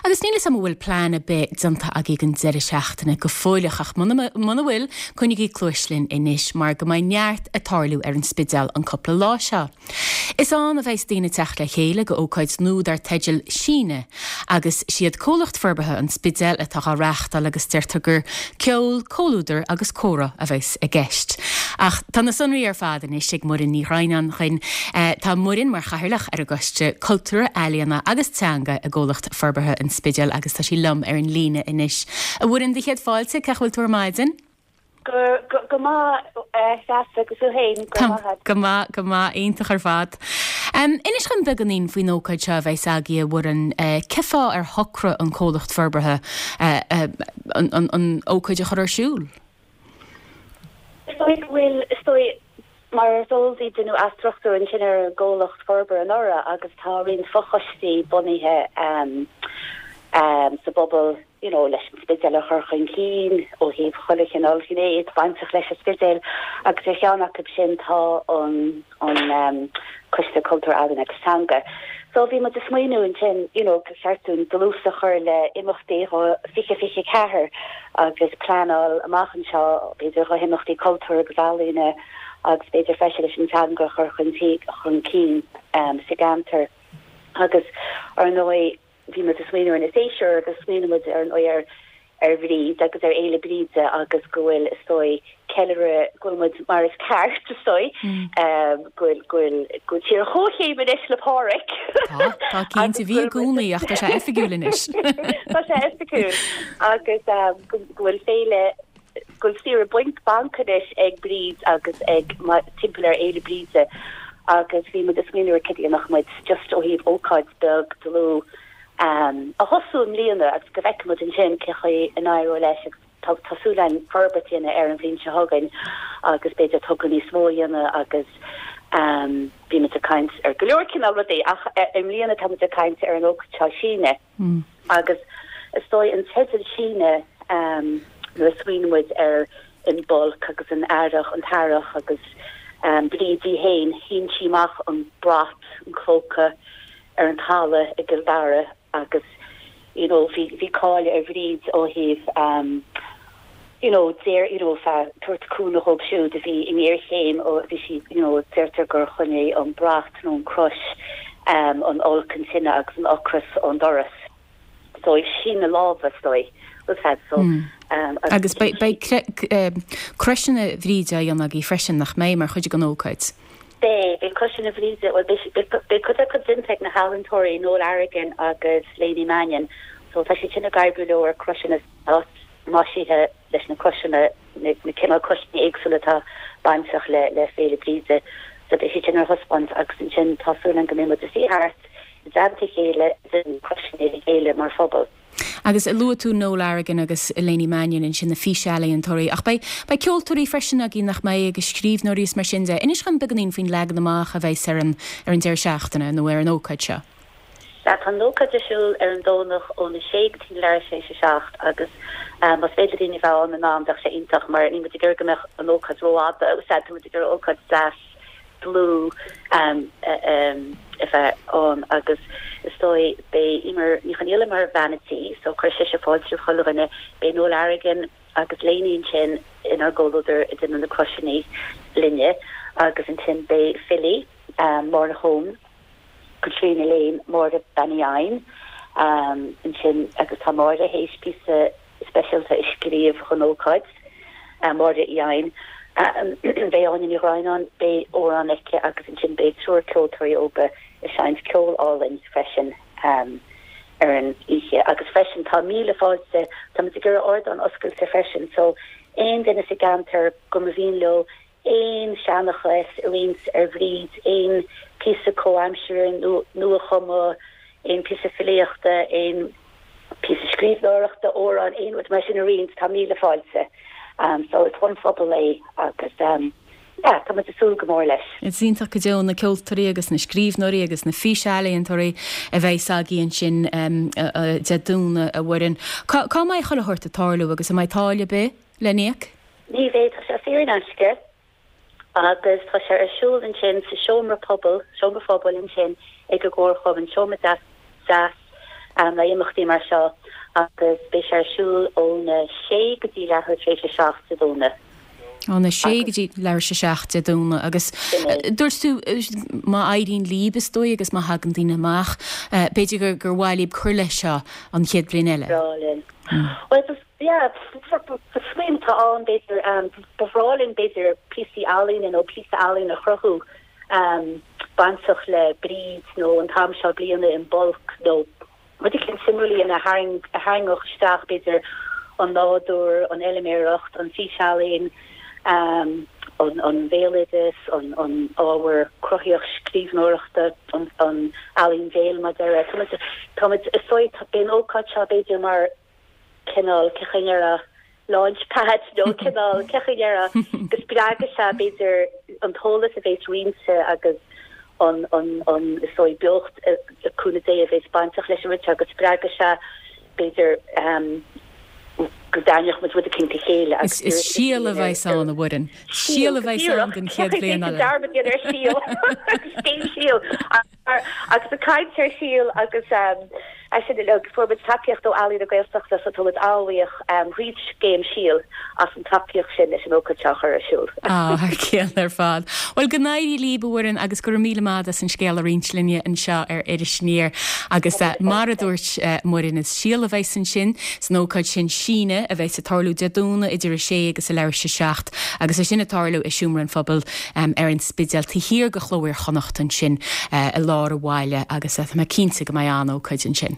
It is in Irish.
Agus níl 'fhios a'm an bhfuil plean ar bith déanta agaibh don deireadh seachtaine go fóilleach ach muna muna bhfuil, coinnigí cluais linn anois mar go mbeidh neart ag tarlú ar an Spidéal an cúpla lá seo. Is ann a bheas daoine ag teacht le chéile go ócáid nua dar teideal Síneadh agus siad Comhlacht Forbartha an Spidéil atá dhá reáchtáil agus deirtear gur ceol, comhluadar agus comhrá a bheas i gceist. Ach tá na sonraí ar fad anois ag Muireann Ní Dhroighneáin chugainn. Tá Muireann mar chathaoirleach ar an gCoiste Cultúir, Ealaíona agus Teanga i gComhlacht Forbartha an Spidéil agus tá sí liom ar an líne anois. A Mhuireann, do chéad fáilte, cén chaoi a bhfuil tú ar maidin? Go maith, a Threasa, agus tú féin? Go raibh maith agat. Go maith, go maith, iontach ar fad. Inis dhom beagáinín faoin ócáid seo a bheas agaibh, a Mhuireann. Cén fáth ar shocraigh an comhlacht forbartha an ócáid a chur ar siúl? Is dóigh go bhfuil, is dóigh, mar is eol daoibh, deineadh athstruchtúrú ansin ar an gcomhlacht forbartha anuraidh agus tá roinnt fochoistí bunaithe sa bpobal, you know leis an Spidéal a chur chun cinn ó thaobh chuile chineál gné atá bainteach leis an Spidéal agus ar cheann acu sin tá an an Coiste Cultúir, Ealaíon agus Teanga. So bhí muid ag smaoineamh ansin you know gur cheart dúinn dlús a chur le imeachtaí 2024 agus pleanáil amach anseo b'fhéidir do himeachtaí cultúir agus ealaíne agus b'fhéidir freisin leis an teanga a chur chun chun cinn sa gceantar agus ar ndóigh Bhí muid ag smaoineamh ar na séasúir agus smaoinigh muid ar ndóigh ar ar Bhríd agus ar Fhéile Bríde agus go bhfuil, is dóigh, ceiliúradh, go bhfuil muid mar is ceart, is dóigh, go bhfuil, go bhfuil, go bhfuil tír ar comhchéim anois le Pádhraic. Tá, tá cinnte, bhí i gcónaí ach tá sé oifigiúil anois. Tá sé oifigiúil agus go bhfuil féile, go bhfuil saoire bainc, banc anois ag Bríd agus ag, timpeall ar Fhéile Bríde agus bhí muid ag smaoineamh ar cad a dhéanfadh muid just ó thaobh ócáid beag dlúth a thosú i mbliana agus go bhfeicfidh muid ansin cé chaoi a n-éireoidh leis agus tá tá súil againn forbairt a dhéanamh air an bhliain seo chugainn agus b'fhéidir togra níos mó a dhéanamh agus bhí muid ag caint ar go leor cineál rudaí ach i mbliana tá muid ag caint ar an ócáid seo Síneadh. Agus is dóigh an teideal Síneadh nuair a smaoinigh muid ar Imbolc agus an earrach, an t-earrach agus Bríd í fhéin, shín sí amach an brat, an clóca ar an talamh i gCill Dara agus you know bhí bhí cáil ar Bhríd ó thaobh you know deir you know feadh tabhairt cúnamh dhóibh siúd a bhí i ngéarchéim ó bhí sí you know deirtear gur choinnigh an brat nó an crois um an olc an tine agus an ocras ón doras so ag síneadh láimhe is dóigh was had so um agus beidh beidh croiseanna Bhríde á dhéanamh agaibh freisin nach mbeidh mar chuid den ócáid? Beidh, beidh croiseanna Bhríde, bhuel beidh beidh beidh cuid acu déanta ag na healaíontóirí Noel Arrigan agus Léiní Mannion so tá siad sin ag oibriú leo ar croiseanna maisithe leis na croiseanna, na cineál croiseanna éagsúla atá bainteach le le Féile Bríde. So beidh siad sin ar thaispeáint agus ansin tá súil againn go mbeidh muid ag suí thart i dteannta a chéile ag déanamh na croiseanna le chéile mar phobal. Agus luaigh tú Noel Arrigan agus Léiní Mannion ansin, na físealaíontóirí, ach beidh beidh ceoltóirí freisin agaibh nach mbeidh agus scríbhneoirí is mar sin de. Inis dhom beagáinín faoin leagan amach a bheas ar an ar an deireadh seachtaine nó ar an ócáid seo. Sea, tá an ócáid ar siúl ar an Domhnach óna sé go dtí leathuair tar éis a 7 agus más féidir le daoine a bheith ann in am bheadh sé iontach mar níl muid ag iarraidh go mbeadh an ócáid rófhada, sea, tá muid ag iarraidh ócáid deas dlúth a bheith ann agus is dóigh beidh Eimear Ní Chonghaile mar bhean a' tí so cuirfidh sise fáilte roimh chuile dhuine, beidh Noel Arrigan agus Léiní ansin inár gcomhluadar ag déanamh na croiseanna linne agus ansin beidh filí, Máire Hone. Caitríona Lane, Máire Bean Uí Eidhin ansin agus tá Máire théis píosa speisialta a scríobh don ócáid, Máire Uí Eidhin. Beidh Áine Ní Dhroighneáin, beidh amhrán aici agus ansin beidh triúr ceoltóirí óga ag seinnt ceol álainn freisin ar an oíche. Agus freisin tá míle fáilte, tá muid ag iarraidh ardán oscailte freisin so aon duine sa gceantar go mba mhian leo aon seanchas a roinnt ar Bhríd, aon phíosa comhaimseartha nua-chumtha, aon phíosa filíochta, aon phíosa scríbhneoireachta, amhrán, aon rud mar sin a roinnt, tá míle fáilte. So is don phobal é agus yeah, tá muid ag súil go mór leis. Is iontach go deo na ceoltóirí agus na scríbhneoirí agus na físealaíontóirí a bheas agaibh ansin Dé Domhnaigh, a Mhuireann. Cá cá mbeidh chuile shórt ag tarlú agus an mbeidh táille ar bith le n-íoc? Ní bheidh, tá sé saor in aisce agus tá sé ar siúl ansin sa seomra pobail, seomra phobail ansin ag an gComharchumann, seomra deas deas. le imeachtaí mar seo agus beidh sé ar siúl óna sé go dtí leathuair tar éis a 7 Dé Domhnaigh. Óna sé go dtí leathuair tar éis a 7 Dé Domhnaigh agus dúirt tú má éiríonn líb is dóigh agus má thagann daoine amach, b'fhéidir gur gur mhaith líb cur leis seo an chéad bhliain eile. Bhreá linn. Bhuel, yeah, smaoineamh atá ann b'fhéidir, ba bhreá linn b'fhéidir píosaí ealaíne nó píosa ealaíne a chruthú bainteach le Bríd nó an t-am seo bliana Imbolc nó rud eicínt suimiúil a dhéanamh a tharraingeodh isteach b'fhéidir an nádúr, an fheilméaracht, an físealaín, an bhéaloideas, an ábhar cruthaíoch scríbhneoireachta, an ealaín bhéil mar a déarfá. Táimid, is dóigh, beidh an ócáid seo b'fhéidir mar cineál, cén chaoi a ndéarfá, launch pad nó cineál, cén chaoi a ndéarfá, go spreagfaidh sé b'fhéidir an t-eolas a bhéas roinnte agus an, an, an, is dóigh, beocht, le cúnamh Dé, a bhéas bainteach leis an rud seo, go spreagfaidh sé b'fhéidir go dtarraingeodh muid rud eicínt le chéile agus Is síol a bheas ann, a Mhuireann. Síol a bheas ann don chéad bhliain eile. Dearmad a dhéanamh ar síol. Cén síol? Agus ag caint ar shíol agus é sin uilig, fuair muid tacaíocht ó Ealaín na Gaeltachta so tá muid an-bhuíoch thríd scéim Síol as an tacaíocht sin leis an ócáid seo a chur ar siúl. Á, thar cionn ar fad. Bhuel, go n-éirí líb, a Mhuireann, agus go raibh míle maith agat as an scéal a roinnt linne anseo ar Iris Aniar. Agus mar a dúirt Muireann, is síol a bheas ansin san ócáid sin, Síneadh, a bheas ag tarlú Dé Domhnaigh idir a sé agus a leathuair tar éis a 7 agus é sin ag tarlú i Seomra an Phobail ar an Spidéal, taobh thiar de Chló Iar-Chonnacht ansin i lár an bhaile agus tá mé cinnte go mbeidh an-ócáid ansin.